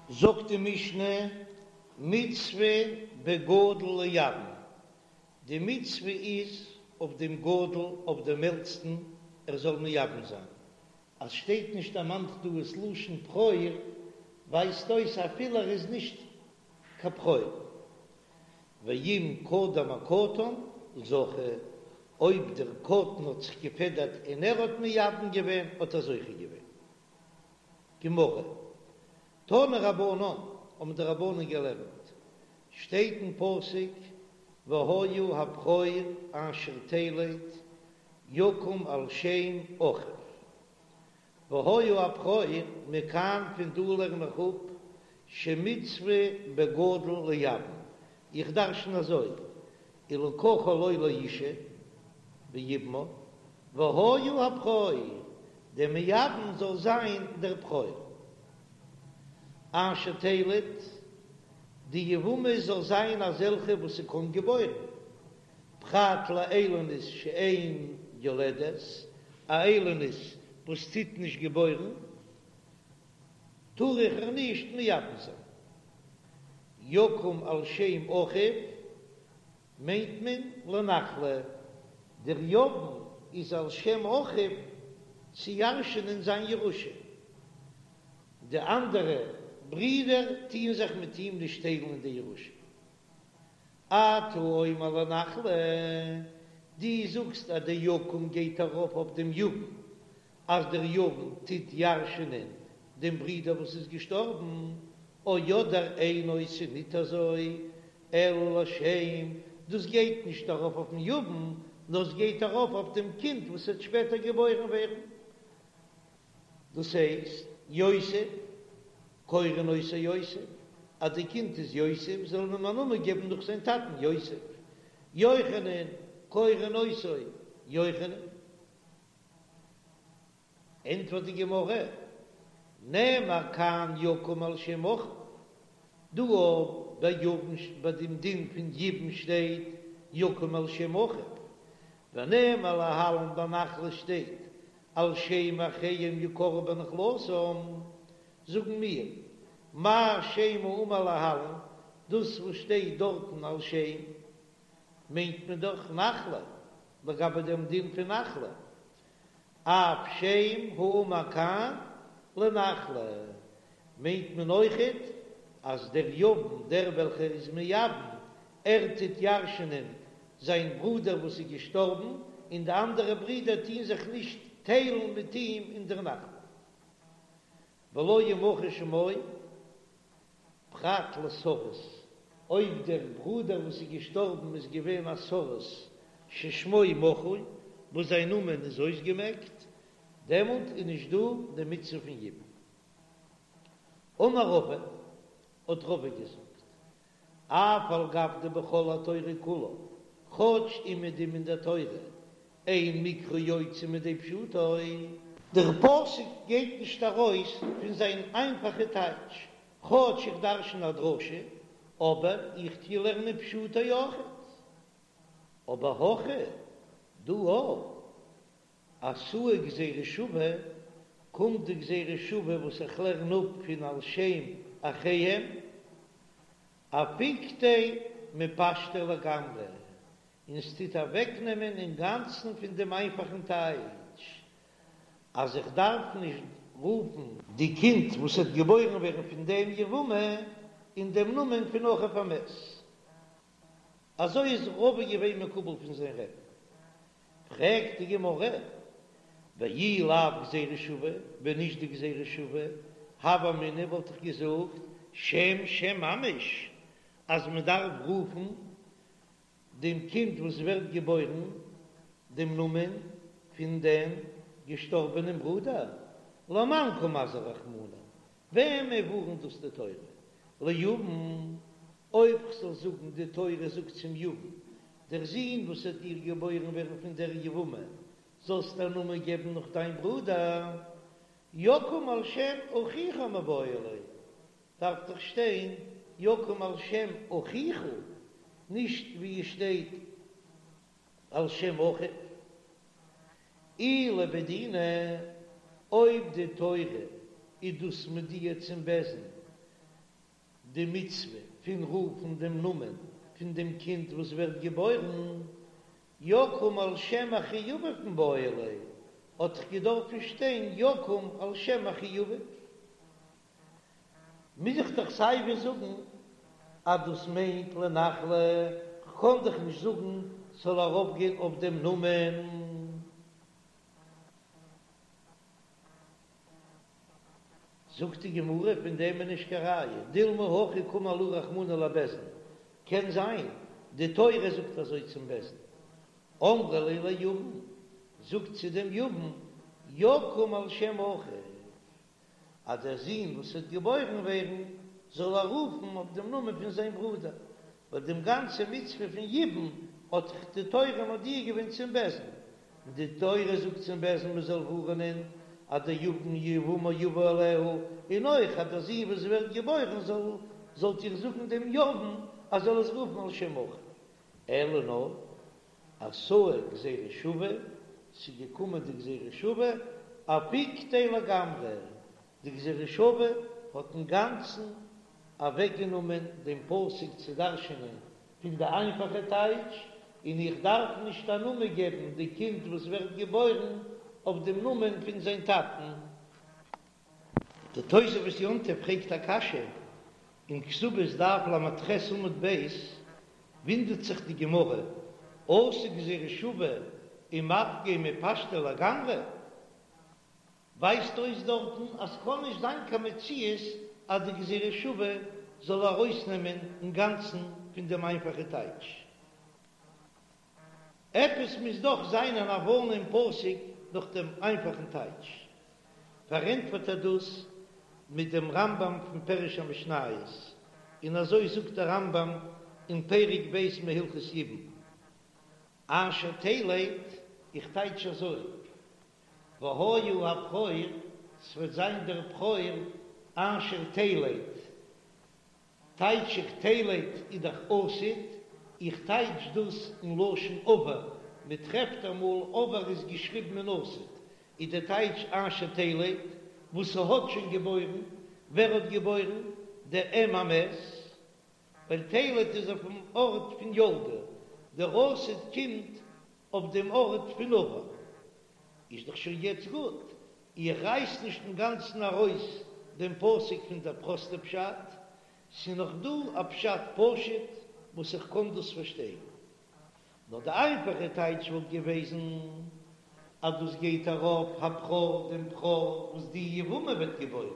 זאגט די משנה, מצוה בגדול לייבם, די מצוה איז אויף דעם גדול, אויף דעם עלטסטן, ער זאל מייבם זיין. אז שטייט נישט דערמאנט דא עס לשון בכור, ווייזט אויס אפילו ער איז נישט קיין בכור. ואם קדם הקטן זכה, אויב דער קטן האט זיך געפעדערט און ער האט מייבם געווען האט ער זוכה געווען. גמרא, תנו רבנן, האבן די רבנן געלערנט, שטייט אין פסוק והיה הבכור אשר תלד יקום על שם אחיו, והיה הבכור, מכאן פון דא לערן איך אפ שמצוה בגדול לייבם, איך דרשן אזוי, ולקחה לו לאשה ויבמה, והיה הבכור, דער מייבם זאל זיין דער בכור. אשר תלד, די יבמה זאל זיין אזעלכע וואס ס'קען געבוירן, פרט לאילונית שאין יולדת, א איילונית וואס טוט נישט געבוירן, טאר איך איר נישט מייבם זיין. יקום על שם אחיו מיינט מען לנחלה, דער יבם איז על שם אחיו צו ירש'ענען זיין ירושה, די אנדערע ברידער טוען זיך מיט אים נישט טיילן אין די ירושה. אתה אומר לנחלה, דו זאגסט אז דער יקום גייט ארויף אויף דעם יבם, אז דער יבם טוט ירש'ענען דעם ברודער וואס איז געשטארבן, או אדער אינו ס'איז ניט אזוי, אלא לשם, דאס גייט נישט ארויף אויפן יבם, נאר עס גייט ארויף אויף דעם קינד וואס וועט שפעטער געבוירן ווערן. דאס הייסט, יוסף, קורין אותו יוסף, אז די קינד איז יוסף, זאל מען אים א נאמען געבן נאך זיין טאטן יוסף. יוחנן, קורין אותו יוחנן. ענטפערט די גמרא, נאמר כאן יקום על שם אחיו, דא ביי יבם ביי דעם דין פון יבום שטייט יקום על שם אחיו, ונאמר להלן ביי נחלה שטייט על שם אחיהם יקראו בנחלתם, זאגן מיר, מה שם האמור להלן, דאס וואס שטייט דארטן על שם, מיינט מען דאך נחלה, לגבי דעם דין פון נחלה, אף שם האמור כאן לנחלה, מיינט מען אויכעט אז דער יבם, דער וועלכער איז מייבם, ער טוט ירש'נען זיין ברודער וואס איז געשטארבן, און די אנדערע ברידער טוהן זיך נישט טיילן מיט אים אין דער נחלה. ולא ימחה שמו פרט לסריס, אויב דער ברודער וואס איז געשטארבן איז געווען א סריס ששמו מחוי, וואס זיין נאמען איז אויסגעמעקט, דעמאלט איז נישט דא די מצוה פון יבום. אמר רבא, האט רבא געזאגט, אף על גב דבכל התורה כולה, כאטש אומעדום אין דער תורה, אין מקרא יוצא מידי פשוטו. דער פסוק גייט נישט ארויס פון זיין איינפאכע טייטש, כאטש איך דרשן א דרשה, אבער איך טוה לערנען פשוטו אויכעט. אבער הכא דא אתאי גזירה שווה, קומט די גזירה שווה וואס איך לערן אפ פון על שם אחיהם, אפיקתיה מפשטיה לגמרי, און ס'טוט אוועקנעמען אינגאנצן פון דעם איינפאכן טייטש אז איך דארף נישט רופן די קינד וואס וועט געבוירן ווערן פון דעם יבמה אין דעם נאמען פון אחיו המת. אזוי איז רבא געווען מקובל פון זיין רבי'ן. פרעגט די גמרא, ואי לאו גזירה שווה, ווען נישט די גזירה שווה, הוה אמינא וואלט איך געזאגט שם שם ממש, אז מען דארף רופן דעם קינד וואס ווערט געבוירן דעם נאמען פון דעם געשטארבענעם ברודער, למאן קא מזהר רחמנא, וועמען ווארנט דאס די תורה? ליבם, אויב כ'זאל זאגן די תורה זאגט צום יבם, דער זון וואס וועט דיר געבוירן ווערן פון דער יבמה, זאלסט א נאמען געבן נאך דיין ברודער, יקום על שם אחיך מיבעי ליה, דארף דאך שטיין יקום על שם אחיך, נישט ווי עס שטייט על שם אחיו. אי לבי דינא, אויב די תורה איז דאס מודיע צום בית דין. די מצוה פון רופן דעם נאמען פון דעם קינד וואס ווערט געבוירן, יקום על שם אחי אביו מיבעי ליה, האט דאך געדארפן שטיין יקום על שם אחי אביו. מוז איך דאך סיי ווי זאגן אז דאס מיינט לנחלה, כ'קען דאך נישט זאגן ס'זאל ארויפגיין אויף דעם נאמען. זאגט די גמרא, פון דעם איז נישט קיין ראיה, דילמא הכי קאמר להו רחמנא לבית דין, קען זיין די תורה זאגט אזוי צום בית דין, אמרו ליה ליבם, זאגט צו דעם יבם, יקום על שם אחיו, אז דער זון וואס וועט געבוירן ווערן זאל ער רופן אויף דעם נאמען פון זיין ברודער, ווייל דעם גאנצע מצוה פון יבום האט דאך די תורה מודיע געווען צום בית דין, און די תורה זאגט צום בית דין מען זאל ווארענען אז דער יבם יבמה יבא עליה, און אויך אז דער זון וואס ווערט געבוירן זאל זאלט איר זאגן דעם יבם אז זאל עס רופן על שם אחיו, אלא נאר אתא גזירה שווה, ס'איז געקומען די גזירה שווה, אפיקתיה לגמרי, די גזירה שווה האט אינגאנצן אוועקגענומען דעם פסוק צו דרש'ענען פון די איינפאכע טייטש, און איך דארף נישט א נאמען געבן די קינד וואס ווערט געבוירן אויף דעם נאמען פון זיין טאטן. די תוספות יום טוב פרעגט א קשיא אין כתובות דף ל"ח עמוד ב', וואונדערט זיך די גמרא, אתא גזירה שווה ומפקא מפשטיה לגמרי? ווייזט אויס דארטן אז ס'קען נישט זיין קיין מציאות אז די גזירה שווה זאל ארויסנעמען אינגאנצן פון דעם איינפאכע טייטש. עפעס מוז דאך זיין אן הבנה אין פסוק נאך דעם איינפאכן טייטש. פארענטפערט ער דאס מיט דעם רמב"ם פון פירוש המשניות, און אזוי זאגט דער רמב"ם אין פרק ב' מהלכות יבום, אשר תלד, איך טייטש אזוי, והיה הבכור, ס'וועט זיין דער בכור אשר תלד, טייטש איך תלד איז דאך עתיד, איך טייטש דאס אין לשון עבר, מען טרעפט אמאל עבר איז געשריבן אין עתיד, איז די טייטש אשר תלד, וואס ס'האט שוין געבוירן, ווער האט געבוירן? דער אם המת, ווייל תלד איז אויפן ארט פון ילדה, דער עתיד קומט אויף דעם ארט פון עבר, איז דאך שוין יעצט גוט, איך רייס נישט אינגאנצן ארויס דעם פסוק פון דער פראסטע פשט, ס'איז נאך דא א פשט פשוט וואס איך קען דאס פארשטיין. נאר די איינפאכע טייטש וואלט געוועזן אז דאס גייט ארויף הבכור דעם בכור וואס די יבמה וועט געבוירן.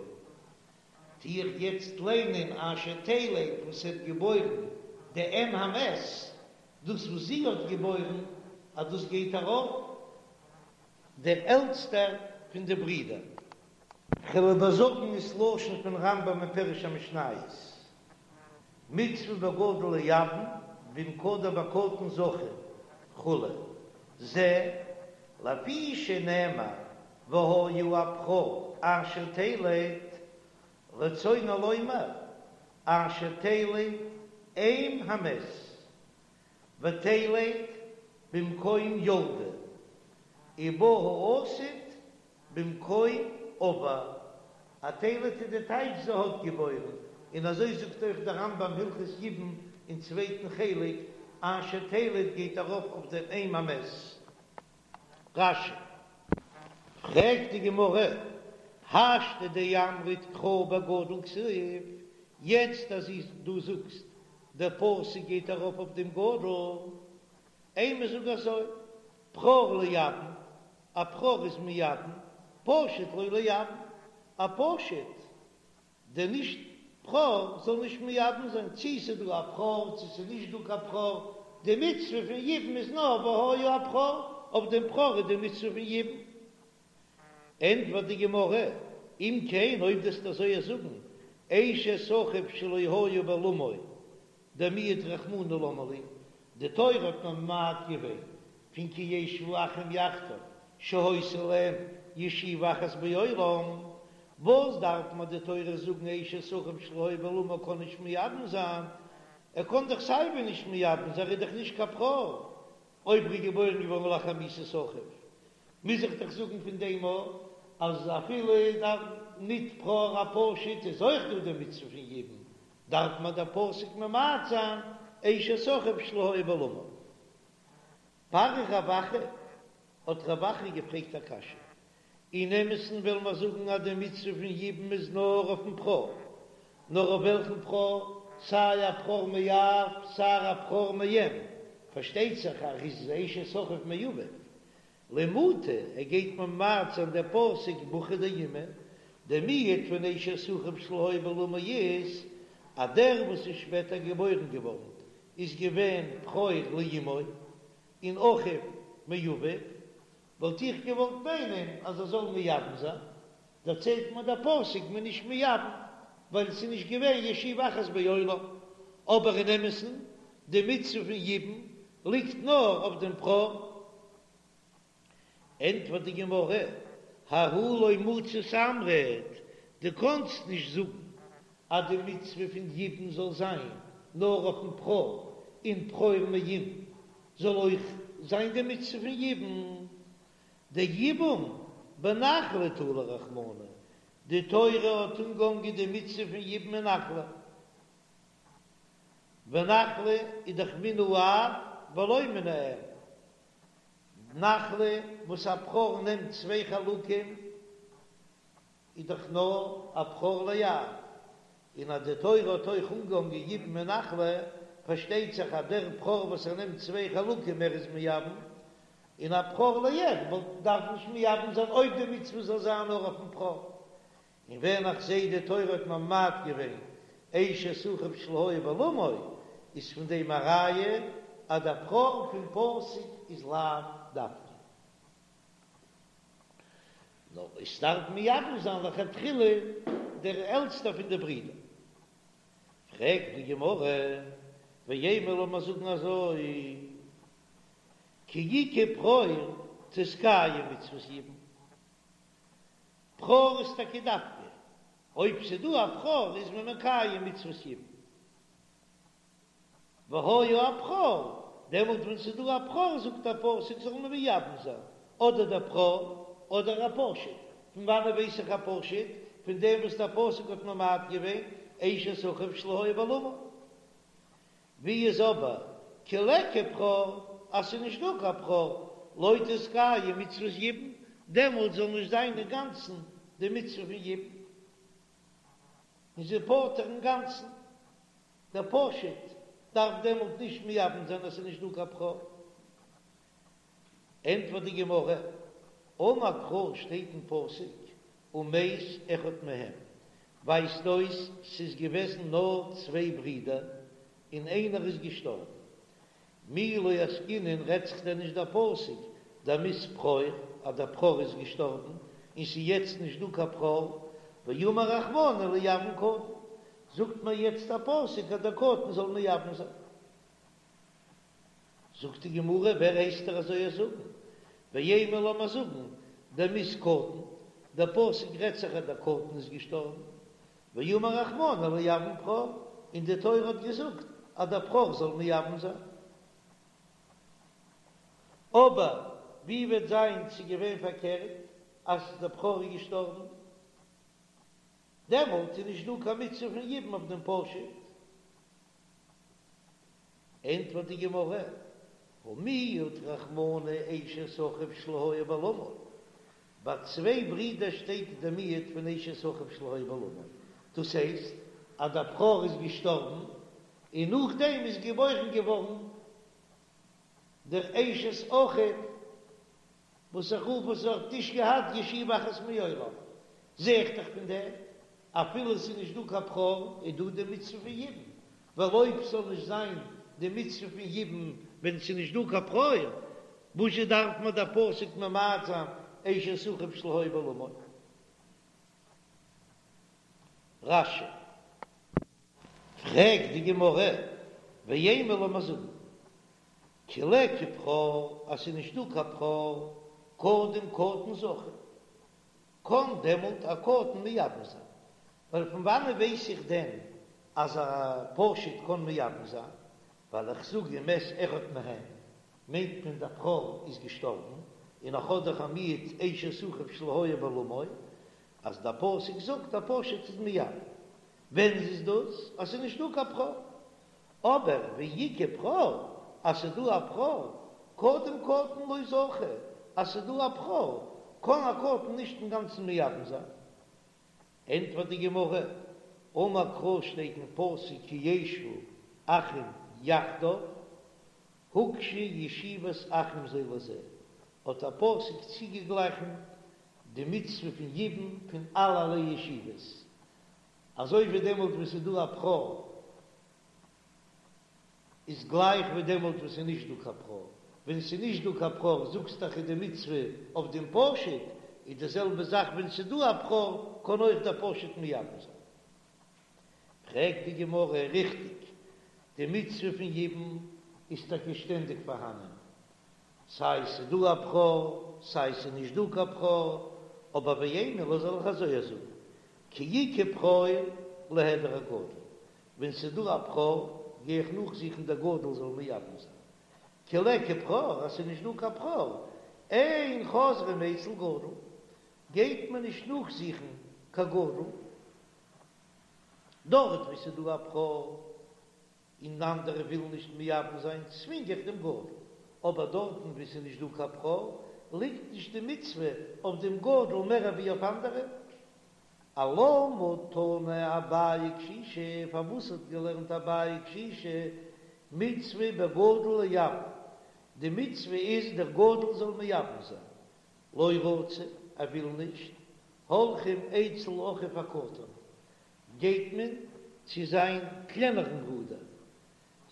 טו איך יעצט ליינען אשר תלד וואס האט געבוירן די אם המת, דאס וואס זי האט געבוירן אז דאס גייט ארויף דער עלטסטער פון די ברידער. כ'וועל איבערזאגן עס לשון פון רמב"ם אין פירוש המשניות, מצוה בגדול לייבם ואם קדם בקטן זכה וכו', זה לפי שנאמר והיה הבכור אשר תלד, רצונו לומר אשר תלד אם המת. ותלד במקום ילדה, ובא העתיד במקום עבר, א תלד איז די טייטש זי האט געבוירן, און אזוי זאגט אויך דער רמב"ם הלכות יבום אין צווייטן חלק, אשר תלד גייט ארויף אויף דעם אם המת. רש"י. פרעגט די גמרא, השתא דאמרת קרא בגדול כתיב, יעצט אז דו זאגסט דער פסוק גייט ארויף אויף דעם גדול, אימא זאג אזוי, בכור לייבם, א בכור איז מייבם, פשוט לא לייבם, א פשוט דער נישט בכור זאל נישט מייבם זיין, צי ס'איז דא א בכור צי ס'איז נישט דא קיין בכור, די מצוה פון יבום איז נאר והיה הבכור, אויף דעם בכור איז די מצוה פון יבום. ענטפערט די גמרא, אם כן אויב דו וועסט אזוי זאגן, אשת אחיו שלא היה בעולמו דמיעט רחמנא למה לי, די תורה האט ממעט געווען פון כי ישבו אחים יחדיו שהיתה להם ישיבה אחת בעולם, וואס דארף מיר די תורה זאגן אשת אחיו שלא היה בעולמו קען נישט מייבם זיין, ער קען דאך סייווי נישט מייבם זיין ער איז דאך נישט קיין בכור, אויב ער איז געבוירן געווארן לאחר מיתת אחיו, מוז איך דאך זאגן פון דעם אויך אז אפילו ניט בכור א פשוט איז אויך דא די מצוה פון יבום. דארף מען דער פסוק ממעט זיין אשת אחיו שלא היה בעולמו. פריך רב אחא, האט רב אחא געפרעגט א קשיא, אין אמת'ן וועלן מיר זאגן אז די מצוה פון יבום איז נאר אויפן בכור, נאר אויף וועלכן בכור? סיי א בכור מאב סיי א בכור מאם, פארשטייט זיך אז איז אשת אחיו מאביו, למעוטי, ער גייט ממעט זיין דער פסוק בחור דאימא, דער מיעוט פון אשת אחיו שלא היה בעולמו איז אז דער וואס איז שפעטער געבוירן געווארן איז געווען בכור לאמו און אחיו מאביו, וואלט איך געוואלט מיינען אז ער זאל מייבם זיין, דערציילט מיר דער פסוק מ'איז נישט מייבם ווייל עס איז נישט געווען ישיבה אחת בעולם, אבער אין אמת'ן די מצוה פון יבום ליגט נאר אויף דעם בכור. ענטפערט די גמרא, ההוא לא מצית אמרת, דו קאנסט נישט זאגן אז די מצוה פון יבום זאל זיין נאר אויפן בכור און בכור מאם זאל אויך זיין די מצוה פון יבום, דיבום בנחלה תלי רחמנא, די תורה האט אנגעהאנגען די מצוה פון יבום אין נחלה, ונחלה איז דאך מן האב ולא מן האם, נחלה וואס א בכור נעמט צוויי חלקים איז דאך נאר א בכור לאב, און אז די תורה האט אויך אנגעהאנגען יבום אין נחלה, פארשטייט זיך אז דער בכור וואס ער נעמט צוויי חלקים ער איז מייבם, און א בכור לאם וואלט דארף נישט מייבם זיין אויב די מצוה זאל זיין נאר אויפן בכור. און ווען איך זעה די תורה האט ממעט געווען אשת אחיו שלא היה בעולמו, איז פון דעם א ראיה אז דער בכור פון פסוק איז לאו דווקא. נאר עס דארף מייבם זיין לכתחילה דער עלטסטער פון די ברידער. פרעגט די גמרא, ואימא לאמיר זאגן אזוי, כי איכא בכור תתקיים מצות יבום, בכור איז טאקע דווקא אויב ס'דא א בכור איז מען מקיים מצות יבום. והיה הבכור, דעמאלט ווען ס'איז דא א בכור זאגט א פסוק זאל מען מייבם זיין, אדער דער בכור אדער א פשוט, פון וואנעט ווייס איך א פשוט? פון דעם וואס דער פסוק האט ממעט געווען אשת אחיו שלא היה בעולמו. ווי איז אבער כי ליכא בכור אז ס'איז נישט דא קיין בכור לא תתקיים מצות יבום, דעמאלט זאל נישט זיין אינגאנצן די מצוה פון יבום, און זי פטור אינגאנצן. דער פשוט דארף דעמאלט נישט מייבם זיין אז ס'איז נישט דא קיין בכור. ענטפערט די גמרא, אמר קרא שטייט אין פסוק ומת אחד מהם, ווייזט אויס ס'איז געוועזן נאר צוויי ברידער און איינער איז געשטארבן, מי לא עסקינן רעדט זיך דען נישט דער פסוק דמית בכור אז דער בכור איז געשטארבן און ס'איז יעצט נישט דא קיין בכור, ואמר רחמנא לייבם קטן, זאגט מיר יעצט א פסוק אז דער קטן זאל מייבם זיין. זאגט די גמרא ווער הייסט דיר אזוי זאגן? ואימא לאמיר זאגן דמית קטן, דער פסוק רעדט זיך אז דער קטן איז געשטארבן, ואמר רחמנא לייבם בכור, און די תורה האט געזאגט אז דער בכור זאל מייבם זיין. אבער ווי וועט זיין ס'איז געווען פארקערט אז דער בכור איז געשטארבן, דעמאלט איז נישט דא קיין מצוה פון יבום אויף דעם פשוט. ענטפערט די גמרא, הא מיעט רחמנא אשת אחיו שלא היה בעולמו, ביי צוויי ברידער שטייט די מיעוט פון אשת אחיו שלא היה בעולמו, דאס הייסט אז דער בכור איז געשטארבן און נאכדעם איז געבוירן געווארן דער אשת אחיו וואס איך רוף וואס האט נישט געהאט ישיבה אחת מעולם, זע איך דאך פון דעם אפילו עס איז נישט דא קיין בכור איז דא די מצוה פון יבום, ווייל אויב ס'זאל נישט זיין די מצוה פון יבום ווען ס'איז נישט דא קיין בכור, וואזשע דארף מיר דער פסוק ממעט זיין אשת אחיו שלא היה בעולמו? רש"י. פרעגט די גמרא, ואימא לאמיר זאגן כי ליכא בכור אז ס'איז נישט דא קיין בכור קודם קטן זכי, קען דעמאלט א קטן מייבם זיין, ווייל פון וואנען ווייס איך דען אז א פשוט קען מייבם זיין? ווייל איך זאג ומת אחד מהם מיינט מען דער בכור איז געשטארבן, און איך האב דאך א מיעוט אשת אחיו שלא היה בעולמו, אז דער פסוק זאגט א פשוט איז מייבם. ווען איז דאס אז ס'איז נישט דא קיין בכור? אבער ואי איכא בכור, אז ס'איז דא א בכור, קודם קטן לא זכה, אז ס'איז דא א בכור, קען א קטן נישט אינגאנצן מייבם זיין. ענטפערט די גמרא, אמר קרא שטייט אין פסוק כי ישבו אחים יחדיו, הוקשה ישיבת אחים זה לזה, האט א פסוק צוגעגליכן די מצוה פון יבום פון אלערליי ישיבות, אזוי ווי דעמאלט וואס ס'איז דא א בכור איז גלייך ווי דעמאלט וואס ס'איז נישט דא קיין בכור, ווען ס'איז נישט דא קיין בכור זאגסט דאך איז די מצוה אויף דעם פשוט, איז די זעלבע זאך ווען ס'איז דא א בכור קען אויך דער פשוט מייבם זיין. פרעגט די גמרא, ריכטיג, די מצוה פון יבום איז טאקע שטענדיג פארהאנען, סיי ס'איז דא א בכור סיי ס'איז נישט דא קיין בכור, אבער ואימא ליה זאל איך אזוי זאגן, כי איכא בכור ליהדר אגדול, ווען ס'איז דא א בכור גיי איך נאכזוכן דער גדול זאל מייבם זיין, כי ליכא בכור אז ס'איז נישט דא קיין בכור, אין חוזרים אצל גדול, גייט מען נישט נאכזוכן קיין גדול, דארט וואו ס'איז דא א בכור און אנדערע ווילן נישט מייבם זיין צווינג איך דעם גדול, אבער דארטן וואו ס'איז נישט דא קיין בכור ליגט נישט די מצוה אויף דעם גדול מער ווי אויף אנדערע. אלמה תנא אביי קשישא, פארוואס האט געלערנט אביי קשישא מצוה בגדול לייבם, די מצוה איז דער גדול זאל מייבם זיין, לא רצה, ער וויל נישט, הולכים אצל אחיו הקטן, גייט מען צו זיין קלענערן ברודער,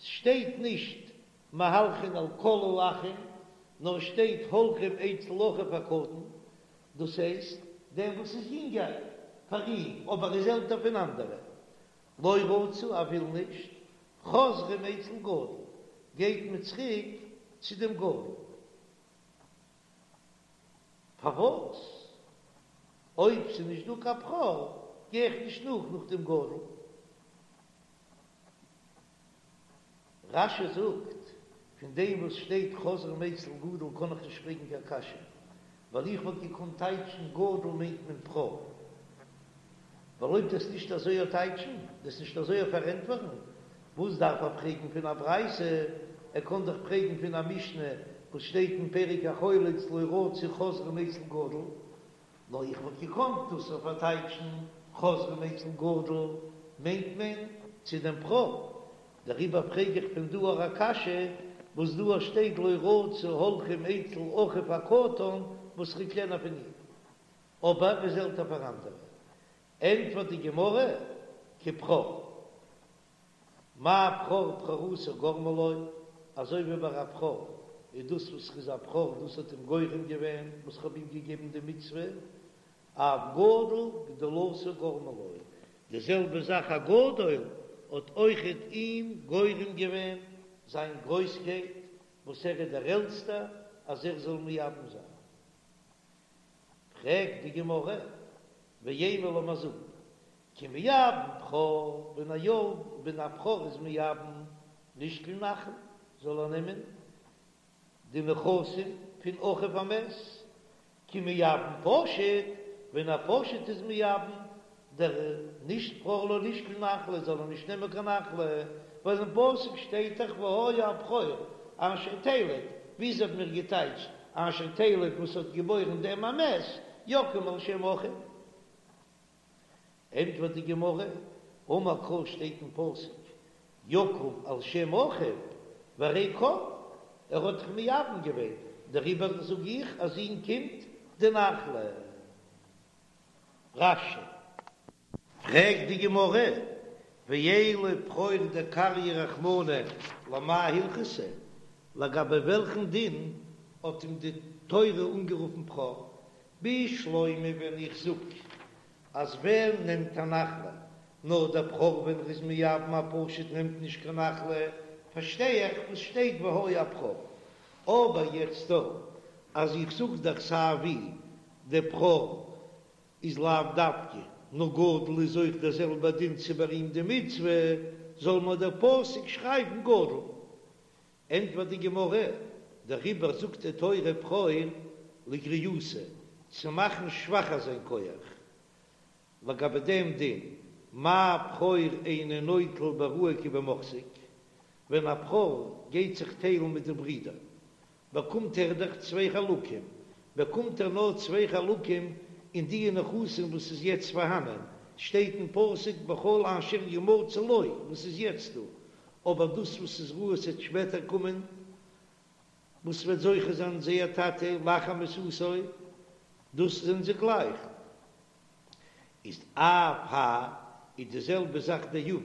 ס'שטייט נישט מהלכין על כל האחים, נאר שטייט הולכים אצל אחיו הקטן, דאס הייסט דעם וואס איז יונגער פאר אים אבער איז עלטער פון אנדערע, לא רצה, ער וויל נישט, חוזרים אצל גדול, גייט מען צוריק צו דעם גדול. פארוואס אויב ס'איז נישט דא קיין בכור גיי איך נישט נאך נאך דעם גדול? רש"י זאגט, פון דעם וואס שטייט חוזרים אצל גדול קען איך נישט פרעגן קיין קשיא, ווייל איך וואלט געקאנט טייטשן גדול מיינט מען בכור, ווייל אויב דאס נישט אזוי טייטשן, דאס נישט אזוי פארענטפערן, וואס דארף ער פרעגן פון א ברייתא, ער קען דאך פרעגן פון א משנה וואס שטייט אין פרק החולץ לא רצו חוזרים אצל גדול, נאר איך וואלט געקאנט דאס אויך פארטייטשן חוזרים אצל גדול מיינט מען צו דעם בכור, דעריבער פרעג איך פון דא אויך א קשיא וואס דא שטייט לא רצו הולכים אצל אחיו הקטן וואס איז קלענער פון אים אבער איז עלטער פאר אנדערע, ענטפערט די גמרא כבכור. מה בכור בכורתו גרמה לו, אזוי ווי ביי א בכור איז דאס וואס ר'איז א בכור דאס האט אים גורם געווען וואס כ'האב אים געגעבן די מצוה, אף גדול גדולתו גרמה לו, די זעלבע זאך א גדול האט אויכעט אים גורם געווען זיין גרויסקייט וואס ער איז דער עלטסטער אז ער זאל מייבם זיין. פרעגט די גמרא, ואימא לאמיר זאגן, כי מייבם בכור, ווען א יא ווען א בכור איז מייבם לישקול נחלה, זאל ער נעמען די נכסים פון אחיו המת, כי מייבם פשוט, ווען א פשוט איז מייבם דער נישט בכור לא לישקול נחלה זאל ער נישט נעמען קיין נחלה, ווייל אין פסוק שטייט דאך והיה הבכור אשר תלד, וויאזוי האבן מיר געטייטשט אשר תלד וואס האט געבוירן דעם המת, יקום על שם אחיו. ענטפערט די גמרא, אמר קרא שטייט אין פסוק יקום על שם אחיו, והרי קם, ער האט דאך מייבם געווען, דעריבער זאג איך אז אים קומט די נחלה. רש"י. פרעגט די גמרא, ואלא בכור דקרייה רחמנא למאי הלכתא, לגבי וועלכן דין האט אים די תורה אנגערופן בכור? בשלמא ווען איך זאג אז ווער נעמט א נחלה, נאר דער בכור ווען ר'איז מייבם א פשוט נעמט נישט קיין נחלה, פארשטיי איך וואס שטייט והיה הבכור, אבער יעצט דא אז איך זאג דאך סיי ווי דער בכור איז לאו דווקא, נאר גדול איז אויך דער זעלבער דין צו ביי אים די מצוה, זאל מיר דער פסוק שרייבן גדול. ענטפערט די גמרא, דעריבער זאגט די תורה בכור לגריעותא, צו מאכן שוואכער זיין כח, לגבי דעם דין. מה בכור אינו נוטל בראוי כבמוחזק, ווען א בכור גייט זיך טיילן מיט די ברידער, באקומט ער דאך צוויי חלקים, באקומט ער נאר צוויי חלקים אין די נכסים וואס איז יעצט פארהאנען, שטייט אין פסוק בכל אשר ימצא לו וואס איז יעצט דא, אבער דאס וואס איז ראוי ס'עט שפעטער קומען, וואס וועט זוכה זיין זייער טאטע לאחר מיתתו, דאס זענען זיי גלייך. איז אף האי איז די זעלבע זאך דער יבם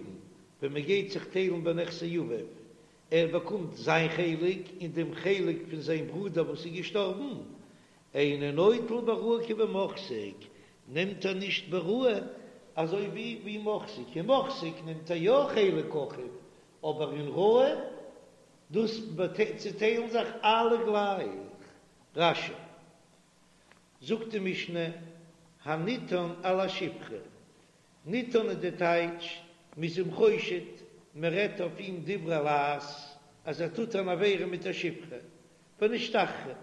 ווען מען גייט זיך טיילן בנכסי אביו, ער באקומט זיין חלק און דעם חלק פון זיין ברודער וואס איז געשטארבן, אינו נוטל בראוי כבמוחזק, נעמט ער נישט בראוי אזוי ווי ווי מוחזק, אין מוחזק נעמט ער יא חלק אחיו, אבער אין ראוי דאס צעטיילן זיך אלע גלייך. רש"י זאגט די משנה, הנטען על השפחה, נטען איז די טייטש, מ'איז אים חושד, מ'רעדט אויף אים דברי לעז, אז ער טוט אן עבירה מיט א שפחה, ונשתחררה,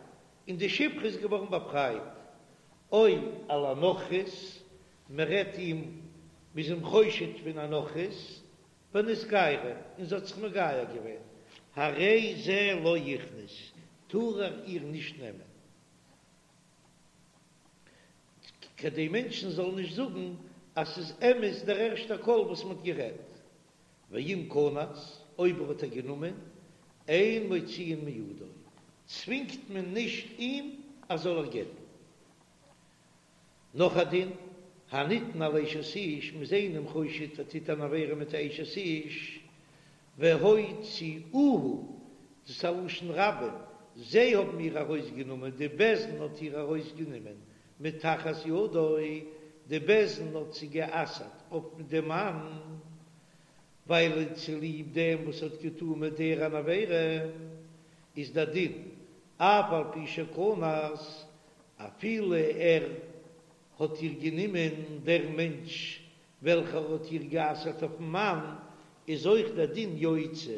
און די שפחה איז געווארן באפרייט, או על הנכרית, מ'רעדט אים, מ'איז אים חושד פון א נכרית, ונתגיירה, און זי האט זיך מגייר געווען, הרי זה לא יכנוס, טאר ער איר נישט נעמען. כדי מענטשן זאלן נישט זאגן אז ס'איז אמת דער ערשטער קול וואס מ'האט גערעדט. ואם כנס, אויב ער האט איר גענומען, אין מוציאין מידו, צווינגט מען נישט אים אז זאל איר גט'ן. נאך א דין, הנטען על אשת איש, מ'איז איינעם חושד ער טוט אן עבירה מיט א אשת איש, והוציאוה, דאס איז א לשון רבים, זיי האבן איר ארויסגענומען, די בית דין האט איר ארויסגענומען מתחת ידו, די בית דין האט זי גע'אסר'ט אויף דעם מאן, ווייל צוליב דעם וואס האט געטאן מיט איר אן עבירה, איז דער דין, אף על פי שכנס, אפילו ער האט איר גענומען, דער מענטש וועלכער האט איר גע'אסר'ט אויפ'ן מאן, איז אויך דער דין יוציא,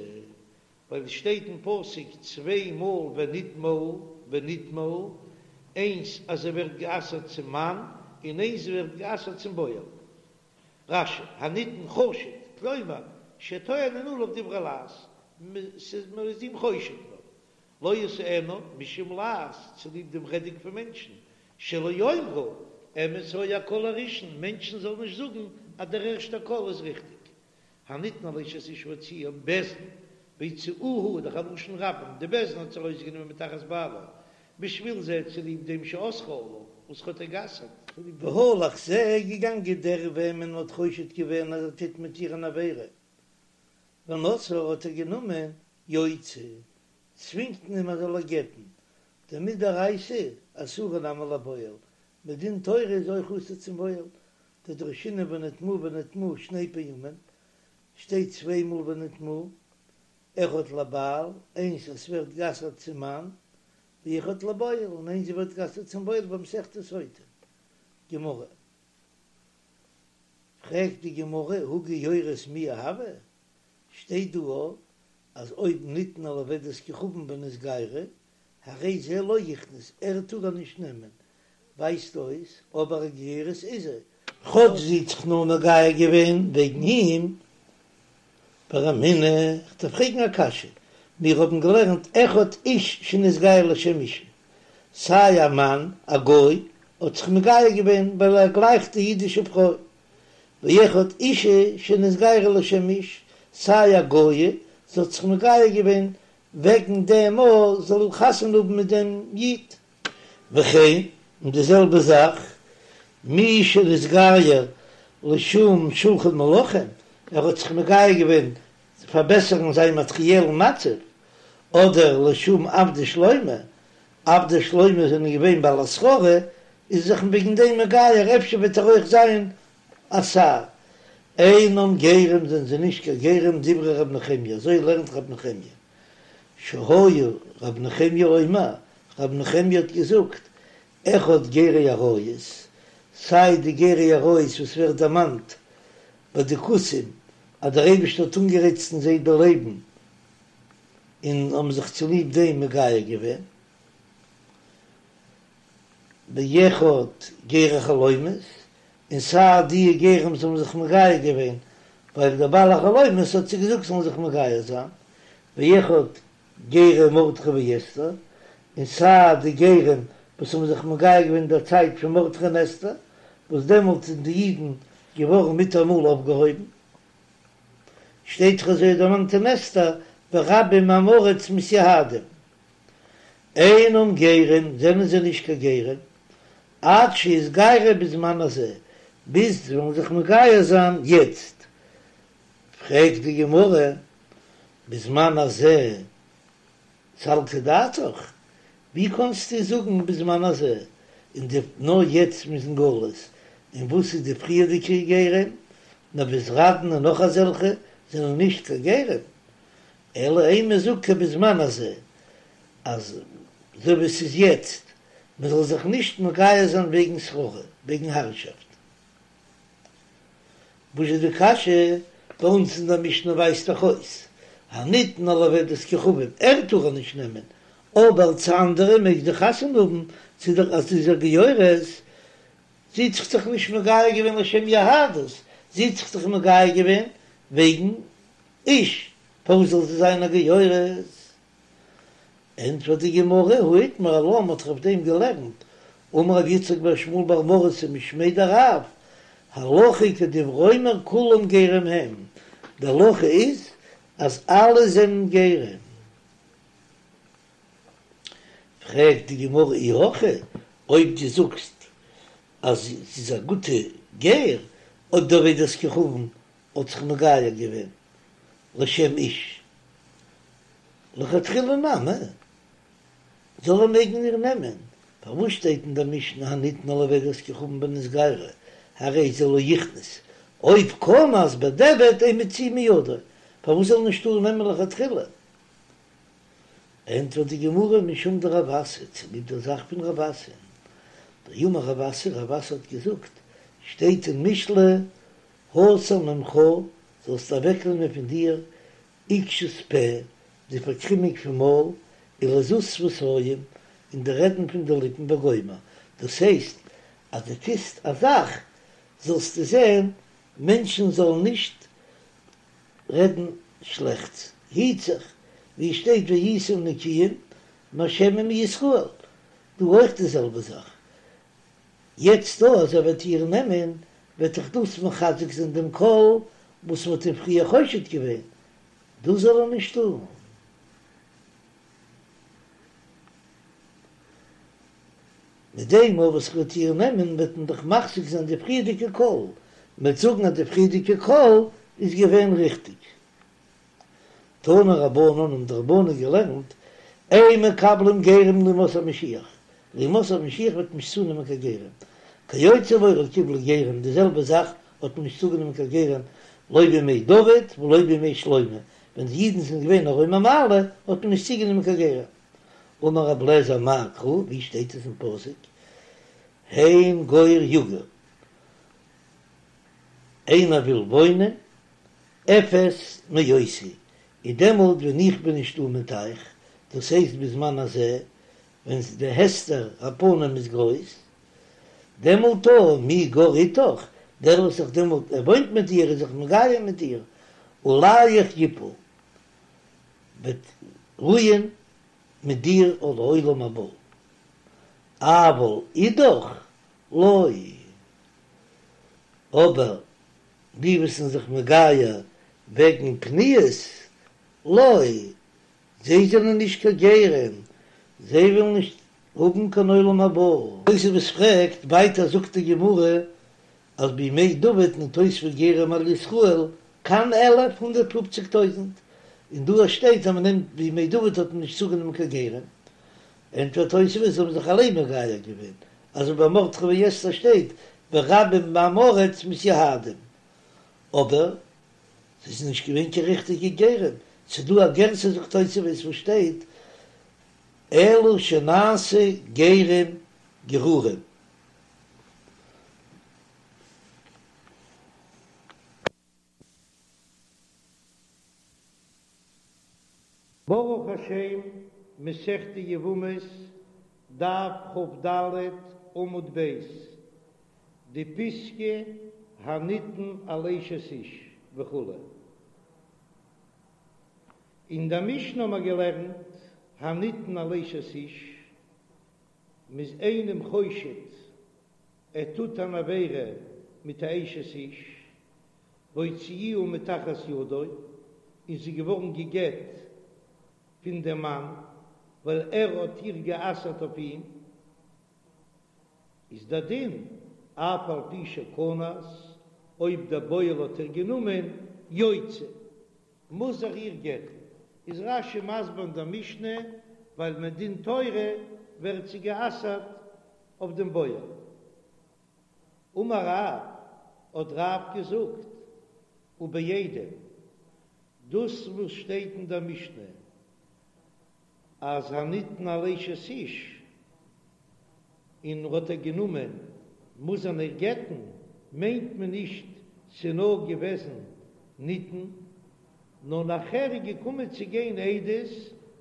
ווייל עס שטייט אין פסוק צוויי מאל ונטמאה ונטמאה, איינס אז זי ווערט גע'אסר'ט צום מאן, און איינס זי ווערט גע'אסר'ט צום בועל. רש"י, הנטען חשוד, כלומר, שטוענין עליו דברי לעז, מען איז אים חושד נאר. לא ישאנה משום לעז, צוליב דעם רעדונג פון מענטשן, שלא יאמרו, אמת היה הקול הראשון, מענטשן זאלן נישט זאגן אז דער ערשטער קול איז ריכטיג. הנטען על אשת איש והוציאה בית דין, והוציאוה איז דאך א לשון רבים, די בית דין האט זי ארויסגענומען מתחת בעלה, בשביל זה צוליב דעם שאסרה עליו, וואס האט איר גע'אסר'ט. והלך זה, געגאנגען דער וועמען מ'האט חושד געווען אז ער טוט מיט איר אן עבירה, ונשאה האט ער גענומען יוציא, צווינגט מען אים ער זאל איר גט'ן, דמדאורייתא אסורה נמי לבועל, מדין תורה איז אויך אסור צום בועל, דדרשינן ונטמאה ונטמאה שני פעמים, שטייט צוויי מאל ונטמאה, אחד לבעל, איינס אז ס'ווערט גע'אסר'ט צום מאן, ואחד לבועל, און איינס זי ווערט גע'אסר'ט צום בועל במסכת סוטה, גמרא. פרעגט די גמרא הא גיורת מיהא הוה, שטייט דא אז אויב נטען על עובדת כוכבים ונתגיירה, הרי זה לא יכנוס, ער טאר איר נישט נעמען, ווייזט אויס אבער א גיורת איז זי. כאטש זי האט זיך נאר מגייר געווען וועגן אים, ורמינהו, כ'דארף פרעגן א קשיא, מיר האבן געלערנט אחד איש שנתגייר לשם אישה, סיי א מאן א גוי האט זיך מגייר געווען ווייל ער גלייכט די אידישע פרוי, ואחד אישה שנתגיירה לשם איש, סיי א גויה, זי האט זיך מגייר געווען וועגן דעם אז זי זאל חתונה האבן מיט דעם איד. וכן, און די זעלבע זאך, מי שנתגייר לשם שולחן מלכים, ער האט זיך מגייר געווען צו פארבעסערן זיין מאטריעלן מצב, אדער לשם עבדי שלמה, עבדי שלמה זענען געווען בעלי שררה, איז זיך וועגן דעם מגייר, אפשר וועט ער אויך זיין א שר. אינם גרים זענען זיי נישט קיין גרים דברי ר' נחמיה, אזוי לערנט ר' נחמיה, שהיה ר' נחמיה אומר, ר' נחמיה האט געזאגט, אחד גרי אריות, סיי די גרי אריות וואס ווערט דערמאנט ביי די כותים אז דער אייבערשטער האט אנגערייצט אין זיי די לייבן און האבן זיך צוליב דעם מגייר געווען, ואחד גרי חלומות, און סיי די גרים וואס האבן זיך מגייר געווען ווייל דער בעל החלומות האט זיי געזאגט זאלן זיך מגייר זיין, ואחד גרי מרדכי ואסתר, און סיי די גרים וואס האבן זיך מגייר געווען אין דער צייט פון מרדכי און אסתר, וואס דעמאלט זענען די אידן געווארן מיטאמאל אויפגעהויבן. שטייט דאך אזוי דערמאנט אין אסתר, ורבים מעמי הארץ מתיהדים. אינם גרים, זענען זיי נישט קיין גרים, עד שיתגיירו בזמן הזה, ביז זיי וועלן זיך מגייר זיין יעצט. פרעגט די גמרא, בזמן הזה סלקא דעתך, ווי קאנסטו זאגן בזמן הזה, און די נאר יעצט מ'איז אין גלות, און וואס איז די פריערדיגע גרים, נבוזראדן און נאך אזעלכע זענען נישט קיין גרים, אלא אימא זאג כבזמן הזה, אז אזוי ווי עס איז יעצט, מען זאל זיך נישט מגייר זיין וועגן שררה, וועגן הערשאפט. וואס איז די קשיא? ביי אונז אין דער משנה ווייזט דאך אויס, הניתנה לעובדת כוכבים, ער טאר איר נישט נעמען, אבער צו אנדערע מעג זי חתונה האבן, צו דער אז זי איז א גיורת, זי האט זיך דאך נישט מגייר געווען לשם יהדות, זי האט זיך דאך מגייר געווען וועגן איש, פארוואס זאל זי זיין א גיורת? ענטפערט די גמרא, הא איתמר עלה, מ'האט דאך אויף דעם געלערנט, אמר רב יצחק בר שמואל בר מרתא משמיה דרב, הלכה כדברי האומר כולם גרים הם, די הלכה איז אז אלע זענען גרים. פרעגט די גמרא אי הכי, אויב דו זאגסט אז זי איז א גוטע גר, אויב די עובדת כוכבים האט זיך מגייר געווען לשם איש, לכתחילה נמי, זאל ער מעגן איר נעמען, פארוואס שטייט אין דער משנה הניתנה לעובדת כוכבים ונתגיירה, הרי זה לא יכנוס, אויב קען אז בדיעבד אין מוציאין מידו, פארוואס זאל ער נישט טארן נעמען לכתחילה? ענטפערט די גמרא משום דרב אסי, צוליב דער זאך פון רב אסי, דאמר רב אסי, רב אסי האט געזאגט, שטייט אין משלי, הסר ממך, זאלסט אוועקנעמען פון דיר עקשות פה, די פארקרימונג פון מויל, ולזות שפתיים, און די רעדן פון די ליפן וגומר, דאס הייסט אז דו טוסט א זאך זאלסטו זען מענטשן זאלן נישט רעדן שלעכטס, היט זיך, ווי עס שטייט והייתם נקיים מהשם ומישראל, דא אויך די זעלבע זאך, יעצט דא אז ער וועט איר נעמען וועט דאך דאס מחזק זיין דעם קול וואס מ'האט אים פריער חושד געווען, דאס זאל ער נישט טון. מיט דעם אויך וואס ער וועט איר נעמען וועט מען דאך מחזיק זיין די פריערדיגע קול, מ'וועט זאגן אז די פריערדיגע קול איז געווען ריכטיג. תנו רבנן האבן די רבנן געלערנט, אין מקבלים גרים לימות המשיח, לימות המשיח וועט מען נישט צונעמען קיין גרים, כיוצא בו לא קיבלו גרים, די זעלבע זאך האט מען נישט צוגענומען קיין גרים לא בימי דוד ולא בימי שלמה, ווען די אידן זענען געווען אין רום המעלה האט מען נישט צוגענומען קיין גרים. אמר רב לעזער מאי קרא, ווי שטייט עס אין פסוק, הן גור יגור, איינער וויל וואוינען, אפס מאותי, איז דעמאלט ווען איך בין נישטא מיט אייך, דאס הייסט בזמן הזה, ווען די הסתר הפנים איז גרויס, דעמאלט אָ, מי גר אתך, דער וואס זיך דעמאלט ער וואוינט מיט דיר איז זיך מגייר מיט דיר, עליך יפול, וועט רוען מיט דיר לעולם הבא, אבל אידך לא, אבער די וואס זענען זיך מגייר וועגן פניות, לא, זיי זענען נישט קיין גרים, זיי ווילן נישט האבן קיין עולם הבא. תוספות פרעגט, ווייטער זאגט די גמרא אז בימי דוד נתוספו גרים על ישראל ק"ן אלף הונדערט פופציג טויזנט, און דא שטייט אז מען נעמט בימי דוד האט מען נישט צוגענומען קיין גרים, ענטפערט תוספות זיי האבן זיך אליין מגייר געווען, אזוי ביי מרדכי ואסתר שטייט ורבים מעמי הארץ מתיהדים, אבער זיי זענען נישט געווען קיין ריכטיגע גרים, ס'איז דא א גירסא זאגט תוספות וואס שטייט אלא שנעשו גרים גרורים. ברוך השם, מסכת יבמות, דף כ"ד, עמוד ב'. די פיסקא הנטען על אשת איש וכו'. אין דער משנה האבן מיר געלערנט הנטען על אשת איש, מ'איז איינעם חושד ער טוט אן עבירה מיט א אשת איש, והוציאוה מתחת ידו, און זי איז געווארן גע'גט פון דעם מאן ווייל ער האט איר גע'אסר'ט אויף אים, איז דער דין אף על פי שכנס, אויב דער בועל האט איר גענומען, יוציא, מוז ער איר גט'ן. איז רש"י מסביר אין דער משנה, ווייל מדין תורה ווערט זי גע'אסר'ט אויף דעם בועל. אמר רב, האט רב געזאגט, ובעדים, דאס וואס שטייט אין דער משנה אז הנטען על אשת איש, און האט ער גענומען, מוז ער איר גט'ן, מיינט מען נישט ס'נאר געוועזן נטען, נאר נאכער איז געקומען צו גיין עדות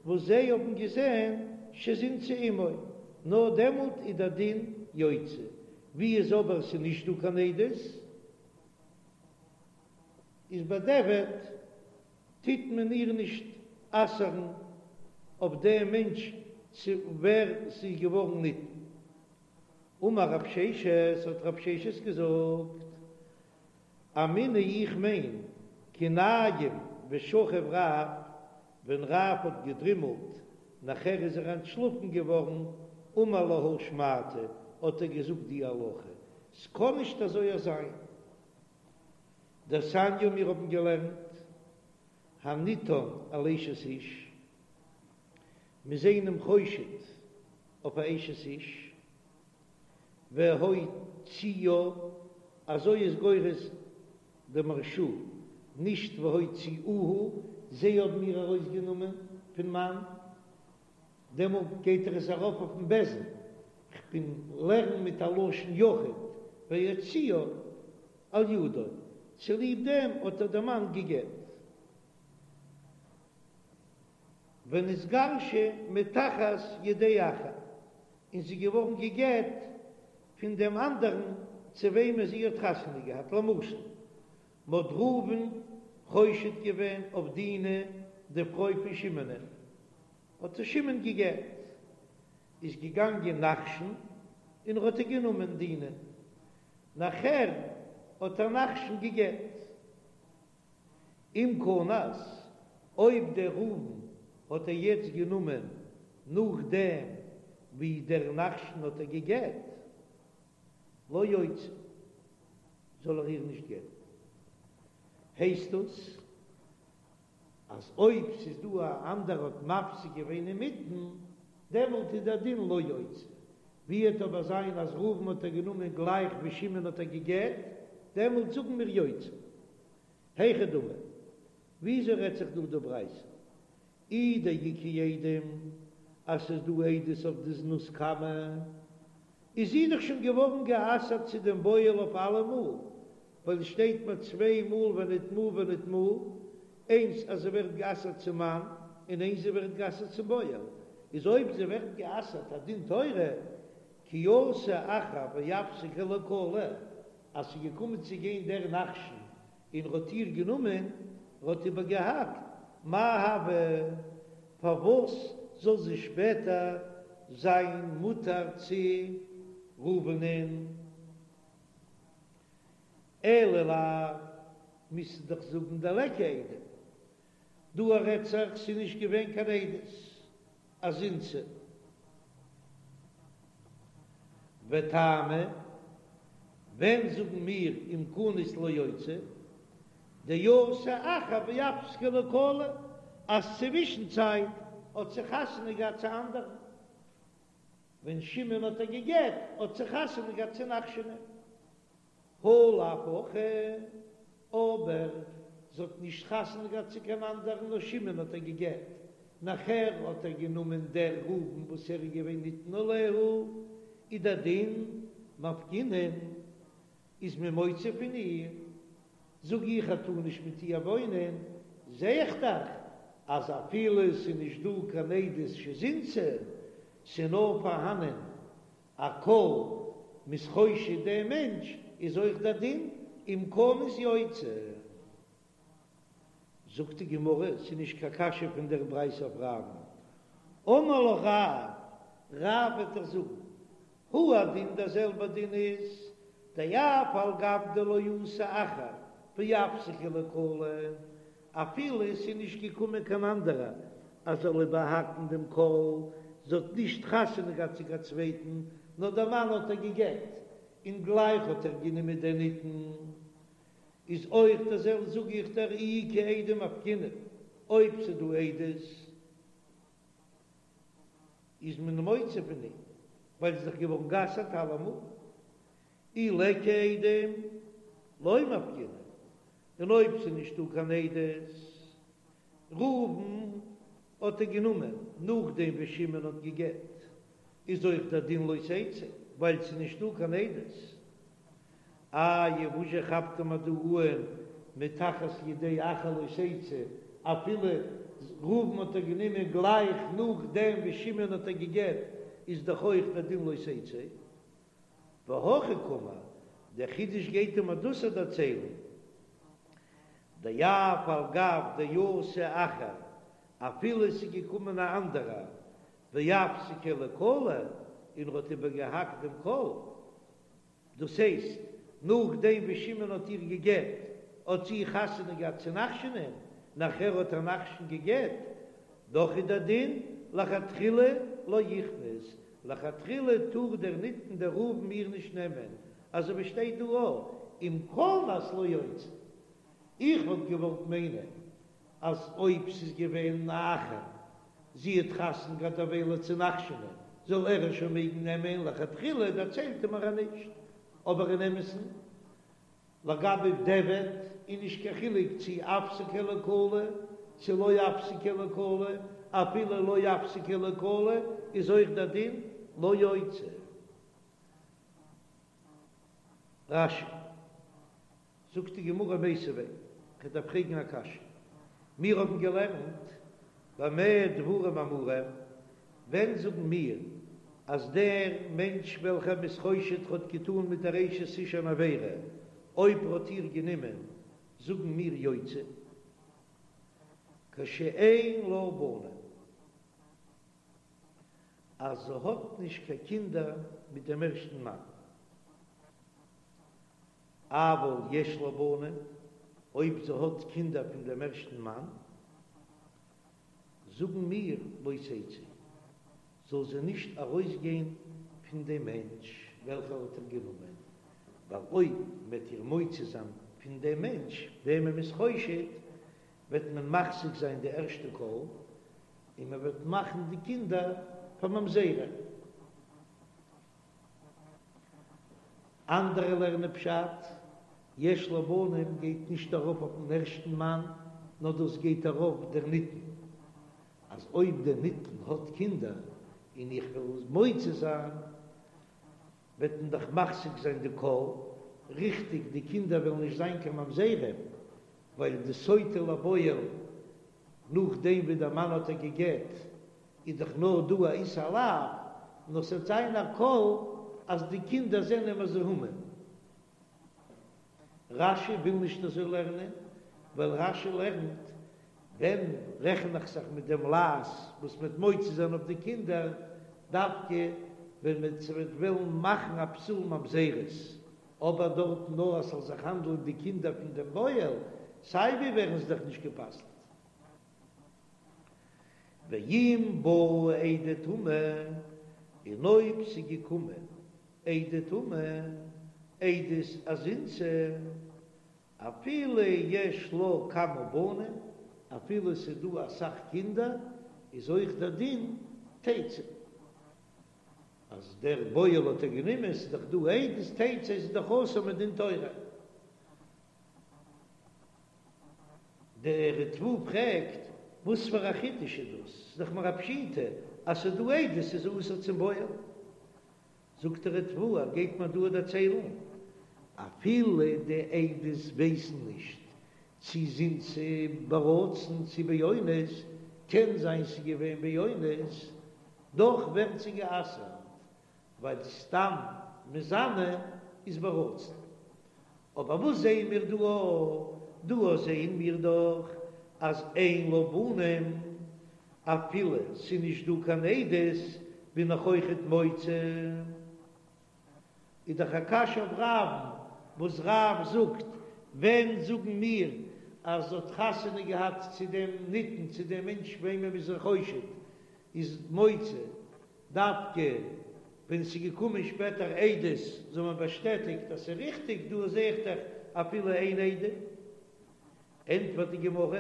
וואס זיי האבן געזען שזינתה עמו, נאר דעמאלט איז דער דין יוציא, ווי איז אבער ס'נישט דא קיין עדות, איז בדיעבד טוט מען איר נישט אסר'ן אויף דעם מענטש צו ווער ס'איז געווארן נטען. אמר רב ששת, האט רב ששת געזאגט, אמינא איך מיין כי ניים ושכיב רב, ווען רב האט געדרימלט נאכער איז ער אנטשלאפן געווארן, אמר להא שמעתא, האט ער געזאגט די הלכה, ס'קען נישט אזוי זיין. דתניא מיר האבן געלערנט הנטען על אשת איש, מ'איז איינעם חושד אויף א אשת איש, והוציאה, אזוי איז גורס די מהרש"א, נישט והוציאוה, זיי האבן איר ארויסגענומען פון מאן, דעמאלט גייט ער עס ארויף אויפן בית דין, כ'בין לערן מיט א לשון יחיד, והוציאה על ידו, צוליב דעם האט איר דער מאן גע'גט. ונתגרשה מתחת ידי אחר, און זי איז געווארן גע'גט פון דעם אנדערן צו וועמען זי האט חתונה געהאט, למשל, מ'האט ראובן חושד געווען אויף דינה די פרוי פון שמעונ'ען, האט איר שמעון גע'גט, איז געגאנגען נחשון און ער האט איר גענומען דינה, נאכער האט איר נחשון גע'גט. אם כנס, אויב דער ראובן האט איר יעצט גענומען נאכדעם ווי דער נחשון האט איר גע'גט, לא יוציא, זאל ער איר נישט גט'ן. הייסט דאס אז אויב ס'איז דא א אנדערע האט מפסיק געווען אינמיטן, דעמאלט איז דער דין לא יוציא. ווי וועט אבער זיין אז ראובן האט איר גענומען גלייך ווי שמעון האט איר גע'גט, דעמאלט זאגן מיר יוציא. היכי דמי, וויאזוי רעדט זיך דא די ברייתא? אי דאיכא עדים אז ס'איז דא עדות אויף די זנות קמא, איז זי דאך שוין געווארן גע'אסר'ט צו דעם בועל אויף אלעמאל, ווייל עס שטייט מיר צוויי מאל ונטמאה ונטמאה, איינס אז זי ווערט גע'אסר'ט צום מאן, און איינס זי ווערט גע'אסר'ט צום בועל, איז אויב זי ווערט גע'אסר'ט א דין תורה, כי אתא אחר ואפסקיה לקלא, אז ס'איז געקומען צו גיין דער נחשון און ר'האט איר גענומען, ר'האט איבערגעהאקט, מאי הוי, פארוואס זאל זי שפעטער זיין מותר צו ראובנ'ען? אלא לאו, מוזטו דאך זאגן דליכא עדים, דא רעדט זיך ס'איז נישט געווען קיין עדות אז זינתה. וטעמא, ווען זאגן מיר אם כנס לא יוציא, דאתא אחר ואפסקיה לקלא, אז צווישן צייט האט זי חתונה געהאט צו אנדערן, ווען שמעון האט איר גע'גט האט זי חתונה געהאט צו נחשונ'ען. הא לאו הכי, אבער זי האט נישט חתונה געהאט צו קיין אנדערן נאר שמעון האט איר גע'גט, נאכער האט איר גענומען דער ראובן וואס ער איז געווען נטען עליה, איז דער דין מפקינן איז מען מוציא פון איר, זאג איך ער טאר נישט מיט איר וואוינען, זע איך דאך אז אפילו ס'איז נישט דא קיין עדות שזינתה, ס'איז נאר פארהאנען א קול מ'איז חושד דעם מענטש. איז אויך דער דין אם כנס יוציא. זאגט די גמרא, ס'איז נישט קיין קשיא פון דער ברייתא אויף רב'ן, אמר לך רב, רב וועט דיר זאגן, הוא הדין דער זעלבער דין איז, דאף על גב דלא אתא אחר ואפסקיה לקלא, אפילו עס איז נישט געקומען קיין אנדערער אז זאל איבערהאקן דעם קול, זי האט נישט חתונה געהאט צו קיין צווייטן, נאר דער מאן האט איר גע'גט, און גלייך האט איר גענומען דער נטען. איז אויך דער זעלבע זאג איך דיר אי איכא עדים מפקינן, אויב ס'איז דא עדות איז מען מוציא פון אים, ווייל ס'איז דאך געווארן גע'אסר'ט אלעמאל, אי ליכא עדים לא מפקינן, און אויב ס'איז נישטא קיין עדות, ראובן האט איר גענומען נאכדעם ווי שמעון האט גע'גט, איז אויך דער דין לא תצא, ווייל ס'איז נישטא קיין עדות. איי וואס זשע כאפט מען דא אן מתחת ידי אחר לא תצא, אפילו ראובן האט איר גענומען גלייך נאכדעם ווי שמעון האט איר גע'גט, איז דאך אויך דער דין לא תצא. והכי קאמר, דער חידוש גייט אים דאס דערציילן, דאף על גב דאתא אחר, אפילו עס איז געקומען א אנדערער, ואפסקיה לקלא, און ער האט איבערגעהאקט דעם קול, דאס הייסט, נאכדעם ווי שמעון האט איר גע'גט, האט זי חתונה געהאט צו נחשונ'ען, נאכער האט איר נחשון גע'גט, דאך איז דער דין לכתחילה לא יכנוס, לכתחילה טאר דער נטען דער ראובן איר נישט נעמען, אזוי ווי שטייט דא א, אם כנס לא יוציא. איך וואלט געוואלט מיינען אז אויב ס'איז געווען א אחר, זי האט חתונה געהאט דערוויילע צו נחשונ'ען, זאל ער איר שוין מעגן נעמען, לכתחילה דערציילט ער מיר אז נישט, אבער אין אמת'ן לגבי דיעבד איז נישט קיין חילוק צי אפסקיה לקלא צי לא אפסקיה לקלא, אפילו לא אפסקיה לקלא איז אויך דער דין לא יוציא. רש"י. זאגט די גמרא מיתיבי, כ'דארף פרעגן א קשיא. מיר האבן געלערנט במה דברים אמורים, ווען זאגן מיר אז דער מענטש וועלכער מ'איז חושד האט געטאן מיט דער אשת איש אן עבירה, אויב ער האט איר גענומען, זאגן מיר יוציא, כשאין לה בנים, אז זי האט נישט קיין קינדער מיט דעם ערשטן מאן. אבל יש לה בנים, אויב זי האט קינדער פון דעם ערשטן מאן, זאגן מיר לא תצא, זאל זי נישט ארויסגיין פון דעם מענטש וועלכער האט איר גענומען, ווייל אויב מ'וועט איר מוציא זיין פון דעם מענטש וועמען מ'איז חושד, וועט מען מפסיק זיין די ערשטע קול, און מ'וועט מאכן די קינדער פאר ממזרים. אנדערע לערנען פשט, יש לה בנים גייט נישט ארויף אויפן ערשטן מאן, נאר דאס גייט ארויף דער נטען, אז אויב דער נטען האט קינדער און איך וועל מוציא זיין, וועט מען דאך מפסיק זיין די קול, ריכטיג די קינדער וועלן נישט זיין קיין ממזרים, ווייל די סוטה לבועל נאכדעם ווי דער מאן האט איר גע'גט איז דאך נאר דא א איסור לאו, נאר ס'וועט זיין א קול אז די קינדער זענען מזוהמין. רש"י וויל נישט אזוי לערנען, ווייל רש"י לערנט, ווען רעכן איך זיך מיט דעם לעז וואס מ'וועט מוציא זיין אויף די קינדער, דווקא ווען מ'וועט וועלן מאכן א פסול ממזרות, אבער דארטן נאר אז ס'זאל זיך האנדלען די קינדער פון דעם בועל, סיי ווי ווערן זיי דאך נישט גע'פסל'ט. ואם באו עדי טומאה, און אויב ס'איז געקומען עדי טומאה, עדות אז זינתה, אפילו יש לה כמה בנים, אפילו ס'איז דא אסאך קינדער, איז אויך דער דין תצא. אז דער בועל האט איר גענומען, ס'איז דאך דא עדות, תצא איז דאך אסור מדין תורה. דער ריטב"א פרעגט, וואס פאר א חידוש איז דאס? ס'איז דאך מיר א פשיטא אז ס'איז דא עדות איז אסור צום בועל. זאגט דער ריטב"א, ער גייט מיר דא דערציילן, אפילו די עדות ווייסן נישט צי זינתה ברצון צי באונס, קען זיין ס'איז געווען באונס, דאך ווערט זי גע'אסר'ט, ווייל סתם מזנה איז ברצון. אבער וואס זעען מיר דא? דא זעען מיר דאך אז אין לה בנים, אפילו ס'איז נישט דא קיין עדות בין איך אויכעט מוציא. איז דאך א קשיא אויף רב'ן, וואס רב זאגט, ווען זאגן מיר אז זי האט חתונה געהאט צו דעם נטען, צו דעם מענטש וועמען מ'איז איר חושד, איז מוציא דווקא ווען ס'איז געקומען שפעטער עדות זאל מען באשטעטיגט אז ס'איז ריכטיג, דא זע איך דאך אפילו אן עדים. ענטפערט די גמרא,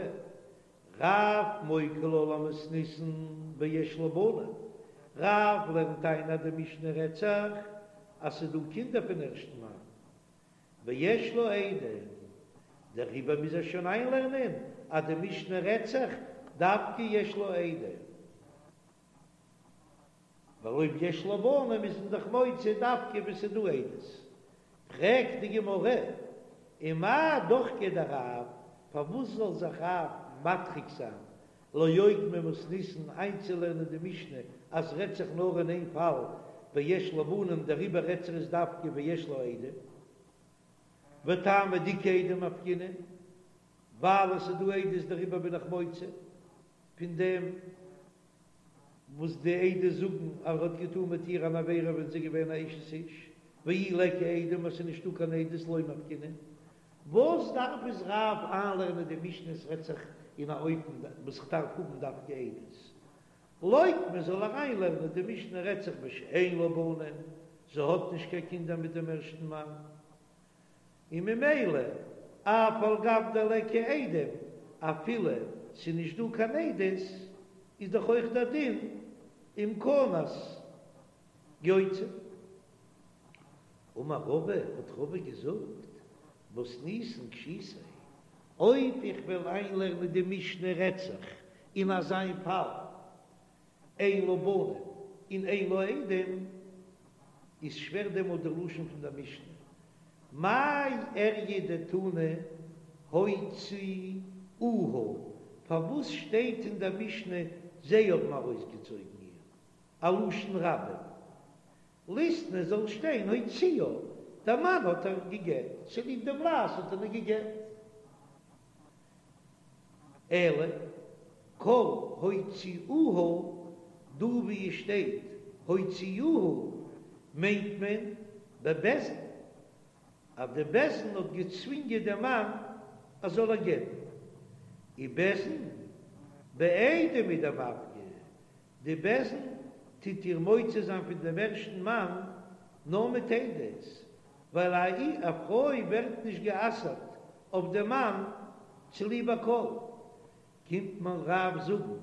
רב מוקי לה למתניתין ביש לה בנים, רב לערנט איין אז די משנה רעדט זיך אז ס'איז דא קינדער פון ערשטן מאן, ויש לה עדים, דעריבער מוז ער שוין איינלערנען אז די משנה רעדט זיך דווקא יש לה עדים. ווייל אויב יש לה בנים איז מען דאך מוציא דווקא ווען ס'איז דא עדות. פרעגט די גמרא, ומאי דוחקיה דרב, פארוואס זאל זיך רב מדחיק זיין לאוקמי מתניתין איינצולערנען די משנה אז ס'רעדט זיך נאר אין איין פאל ביש לה בנים דעריבער רעדט זיך עס דווקא ביש לה עדים וטעמא דאיכא עדים מפקינן ווייל עס איז דא עדות דעריבער בין איך מוציא פון דעם וואס די עדות זאגן אז ער האט געטאן מיט איר אן עבירה ווען זי איז געווען א אשת איש, ואי ליכא עדים אז ס'איז נישטא קיין עדות לא מפקינן, וואס דארף עס רב איינלערנען די משנה עס רעדט זיך אין א אופן וואס כ'דארף האבן דווקא עדות, לוקמה זאל ער איינלערנען די משנה רעדט זיך בשאין לה בנים, זי האט נישט קיין קינדער מיט דעם ערשטן מאן. און ממילא אף על גב דליכא עדים, אפילו ס'איז נישט דא קיין עדות, איז דאך אויך דער דין אם כנס יוציא. אמר רבא, האט רבא געזאגט, מתניתין קשיתיה, אויב איך וועל איינלערנען די משנה רעדט זיך אין אזא פאל, אין לה בנים און אין לה עדים, איז שווער דעמאלט די לשון פון דער משנה, מאי איריא דתנא הוציאוה, פארוואס שטייט אין דער משנה זיי האבן ארויסגעצויגן איר, א לשון רבים, ליתני זאל שטיין הוציאה, דער מאן האט איר געגעט, צוליב דעם לעז האט ער איר געגעט. אלא כל הוציאוה, דא ווי עס שטייט הוציאוה מיינט מען בבית דין, אז די בית דין האט געצווינגען דעם מאן אז זאל איר גט'ן, ובית דין בעדים הוא דמפקי, די בית דין טוט איר מוציא זיין פון דעם ערשטן מאן נאר מיט עדות, ווייל א פרוי ווערט נישט גע'אסר'ט אויף דעם מאן צוליב א קול. קומט מיר רב זאגן,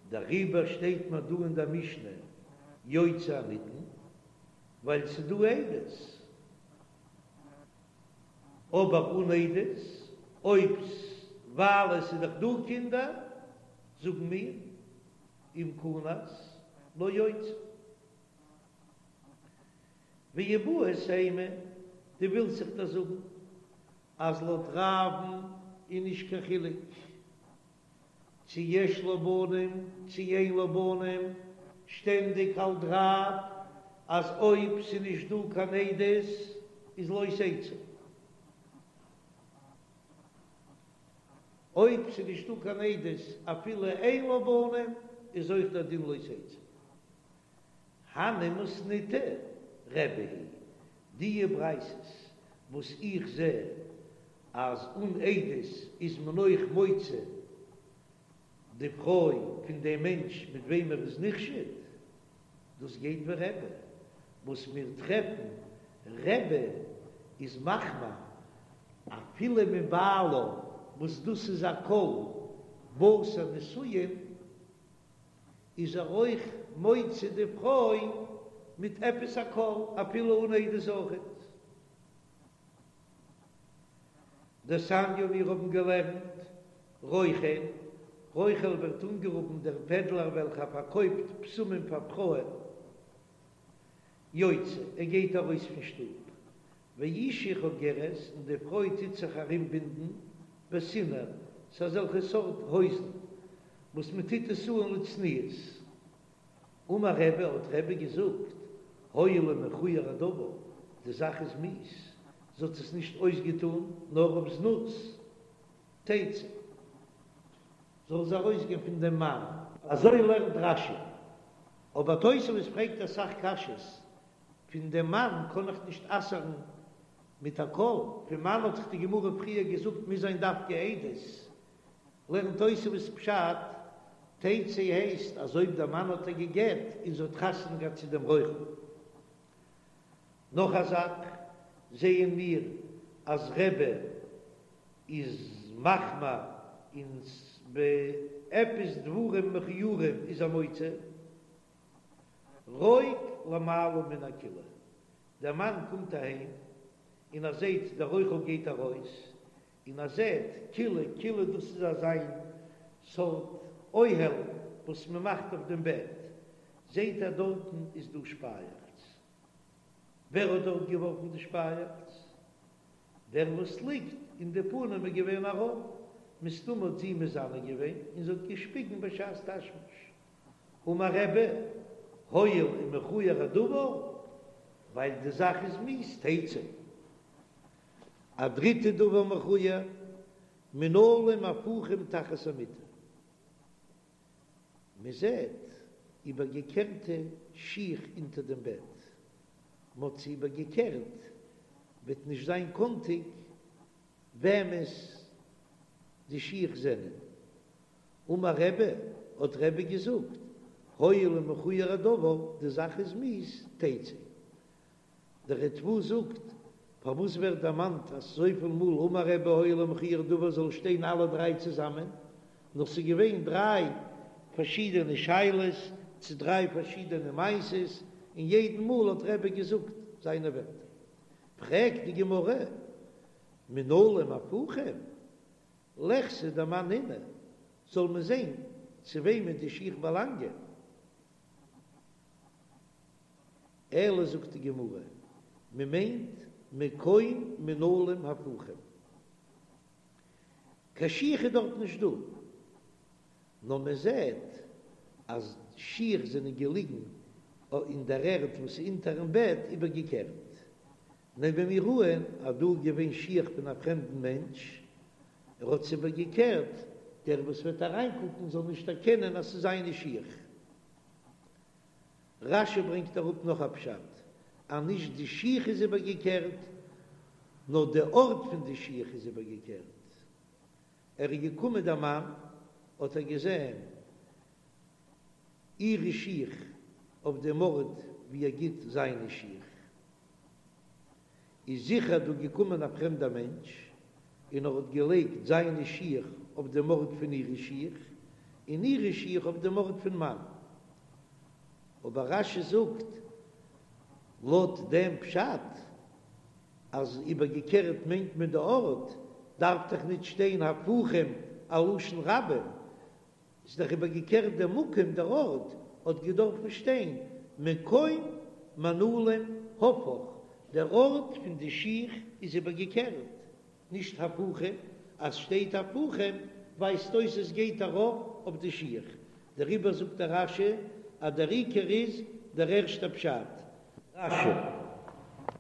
דעריבער שטייט מיר דא אין דער משנה יוציא הנטען, ווייל ס'איז דא עדות. אבער אן עדות, אויב ווייל עס איז דאך דא קינדער, זאגן מיר, אם כנס לא יוציא. ואיבעית אימא, דו ווילסט זיך דאך זאגן אז לויט רב'ן איז נישט קיין חילוק צו יש לה בנים צו אין לה בנים, שטענדיג האלט רב אז אויב ס'איז נישט דא קיין עדות איז לא תצא. אויב ס'איז נישט דא קיין עדות אפילו אין לה בנים איז אויך דער דין לא תצא. הני מתניתא רבי היא, די ברייתות וואס איך זע אז אן עדות איז מען אויך מוציא די פרוי פון דעם מענטש מיט וועם ער איז נחשד, דאס גייט ווי רבי, וואס מיר טרעפן רבי איז מחמיר אפילו מבעלה וואס דאס איז א קול בתר נישואין. איז ער אויך מוציא די פרוי מיט עפעס א קול אפילו אן עדות אויכעט. דתניא מיר האבן געלערנט רוכל, רוכל ווערט אנגערופן דער פעדלער וועלכער פארקויפט בשמים פאר פרויען, יוצא, ער גייט ארויס פון שטוב, ואשה חוגרת, און די פרוי טוט זיך ארומבינדן בסינר, ס'איז אזעלכע סארט הויזן וואס מען טוט עס אן לצניעות. אמר רבי, האט רבי געזאגט, הואיל ומכוער הדבר, די זאך איז מיאוס. זי האט עס נישט אויסגעטון נאר אויף זנות, תצא, זאל זי ארויסגיין פון דעם מאן. אזוי לערנט רש"י. אבער תוספות פרעגט אסאך קשיות, פון דעם מאן קען איך נישט אסר'ן מיט א קול, פון מאן האט דאך די גמרא פריער געזאגט מוז זיין דווקא עדות, לערנט תוספות פשט, תצא הייסט אז אויב דער מאן האט איר גע'גט און זי האט חתונה געהאט צו דעם רוכל. נאך א זאך זעען מיר אז רבי איז מחמיר און ביי עפעס דברים מכוערים איז ער מוציא רוק למעלה מן הכילה, דער מאן קומט אהיים און ער זעט דער רוכל גייט ארויס, און ער זעט כילה, כילה דאס איז אזיין סארט אוהל וואס מען מאכט אויף דעם בעט, זעט ער דארטן איז דא שפייעכץ, ווער האט דארט געווארפן די שפייעכץ? דער וואס ליגט און די פנים איז געווען ארויף, מסתמא האט זי מזנה געווען און זי האט געשפיגן בשעת תשמיש. אמר רבי, הואיל ומכוער הדבר, ווייל די זאך איז מיאוס, תצא. א דריטע דבר מכוער, מנעלים הפוכים תחת המיטה. מען זעט איבערגעקערטע שיך אונטער דעם בעט, מען האט זיי איבערגעקערט, וועט נישט זיין קאנטיג וועמענס די שיך זענען. אמר רבי, האט רבי געזאגט, הואיל ומכוער הדבר, די זאך איז מיאוס, תצא. דער ריטב"א זאגט, פארוואס ווערט דערמאנט אזויפיל מאל אמר רבי הואיל ומכוער הדבר זאל שטיין אלע דריי צוזאמען, נאר ס'איז געווען דריי פארשידענע שאלות צו דריי פארשידענע מעשות, און יעדן מאל האט רבי געזאגט זיינע ווערטער. פרעגט די גמרא, מנעלים הפוכים, ליחזי דמאן נינהו, זאל מען זען צו וועמען די שיך באלאנגען. אלא זאגט די גמרא, מען מיינט מקום מנעלים הפוכים, קיין שיך איז דארט נישט דא, נאר מען זעט אז שיך זענען געליגן אין דער ערד וואס איז אונטערן בעט איבערגעקערט, נעמען מיר אן אז דא איז געווען שיך פון א פרעמדן מענטש, ער האט עס איבערגעקערט, דער וואס וועט אריינקוקן זאל נישט דערקענען אז ס'איז זיינע שיך. רש"י ברענגט אראפ נאך א פשט, אז נישט די שיך איז איבערגעקערט, נאר די ארט פון די שיך איז איבערגעקערט. ער איז געקומען דער מאן, האט ער געזען אירע שיך אויף דעם ארט ווי ער גיט זיינע שיך. איז זיכער דא געקומען א פרעמדער מענטש און ער האט געלייגט זיינע שיך אויף דעם ארט פון אירע שיך, און אירע שיך אויף דעם ארט פון מאן. אבער רש"י זאגט לויט דעם פשט אז איבערגעקערט מיינט מען די ארט, דארף דאך ניט שטיין הפוכים א לשון רבים, איז דאך איבערגעקערט דער מקום, דער ארט, האט געדארפן שטיין מקום מנעלים הפוך, דער ארט פון די שיך איז איבערגעקערט, נישט הפוכים, אז שטייט הפוכים ווייזט אויס עס גייט ארויף אויף די שיך, דעריבער זאגט דער רש"י אז דער עיקר איז דער ערשטער פשט. רש"י.